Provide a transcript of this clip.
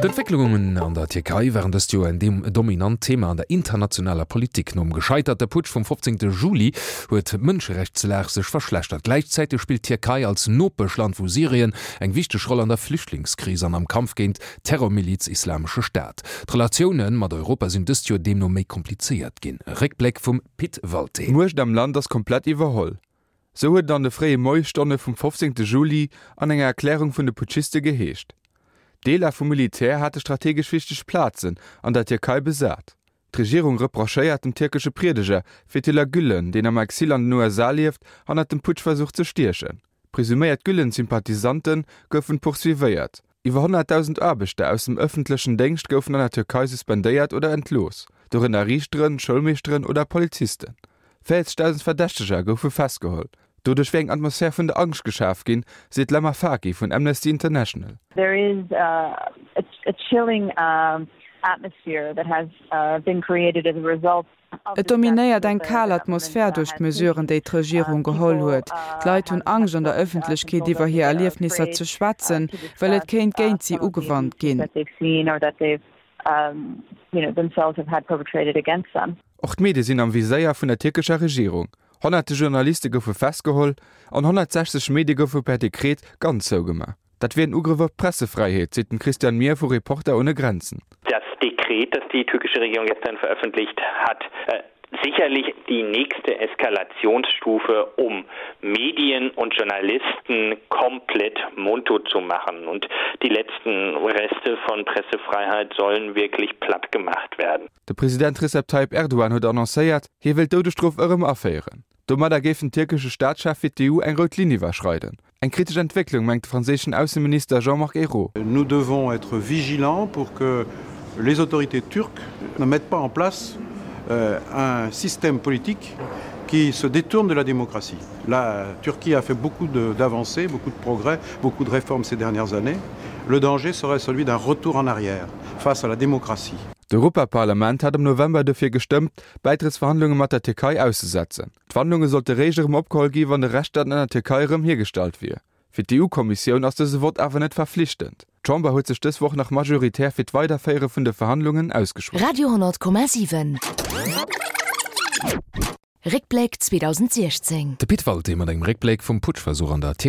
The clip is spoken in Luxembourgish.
D'Entwécklungen an der Tierkei waren dëst Joer en dominant Thema an der internationaler Politik. Nom gescheiterte Putsch vum 15. Juli huet d'Mënscherechtslag sech verschlechtert. Gläichzäiteg spillt d'Tierkei als Nopeschland vu Syrien eng wichteg Roll an der Flüchtlingskris an am Kampf géint d'Terrormiliz Islamesche Staat. D'Relatioune mat Europa sinn dëst Joer deemno méi komplizéiert ginn. E Réckbléck vum Pit Walté. D'Muecht am Land ass komplett iwwerholl. Sou huet et an de fréie Moiesstonne vum 15. Juli an enger Erklärung vun de Putschiste geheescht. Deeler vum Militär hate strategesch wichteg Plazen an der Tierkei besat. D'Regierung reprochéiert dem tierkesche Priedeger Fethullah Gülen, deen am Exil an den USA lieft, hannert dem Putschversuch ze stiechen. Presuméiert Gülen-Sympathisante goufen poursuivéiert. Iwwer 100.000 Aarbechter aus dem ëffentlechen Déngscht goufen an der Tierkei suspendéiert oder entlooss, dorënner Riichteren, Schoulmeeschteren oder Polizisten. 40.000 Verdächteger goufe festgeholl. Doduerch wier eng Atmosphär vun der Angscht geschaf ginn, seet d'Lama Faki vun Amnesty International. There is a chilling atmosphere that has been created as a result Et dominéiert eng kal Atmosphär duerch d'Mesuren, déi d'Regierung geholl huet. D'Leit hunn Angscht, an der Ëffentlechkeet iwwer hir Erliefnisser ze schwätzen, well et kéint géint si ugewannt ginn. Och d'Medie sinn am Viséier vun der tierkescher Regierung. Honnerte Journaliste goufe festgeholl an 160 Medie goufe per Dekret ganz zougemaach. Dat wier en Ugrëff op d'Pressefräiheet, seet den Christian Mihr vu Reporter ohne Grenzen. Das Dekret, das die türkische Regierung gestern veröffentlicht hat, sicherlich die nächste Eskalationsstufe, um Medien und Journalisten komplett mundtot zu machen. Und die letzten Reste von Pressefreiheit sollen wirklich platt gemacht werden. De President Recep Tayyip Erdogan huet annoncéiert, hie wéilt d'Doudesstrof erëm aféieren. Domadder géif den tierkesche Staatschef fir d'EU eng rout Linn iwwerschreiden. Eng kritesch Entwécklung, mengt de franséischen Ausseminister Jean-Marc Ayrault. Nous devons être vigilants pour que les autorités turques ne mettent pas en place un système politique qui se détourne de la démocratie. La Turquie a fait beaucoup d'avancées, beaucoup de progrès, beaucoup de réformes ces dernières années. Le danger serait celui d'un retour en arrière face à la démocratie. D'Europaparlament hat am November dofir gestëmmt, d'Bäitrëttsverhandlunge mat der Tierkei auszesetzen. D'Verhandlunge sollte réischt erëm opgeholl gi wann de Rechtsstaat an der Tierkei erëm hiergestallt wier. Fir d'EU-Kommissioun ass dëse Vott awer net verflichtend. D'Chamber huet sech dës Woch nach majoritär fir d'Weiderféiere vun de Verhandlungen ausgeschwat. Radio 10,7 Réckbléck 2016. De Pit Walté mat engem Réckbléck vum Putschversuch an der Tierkei.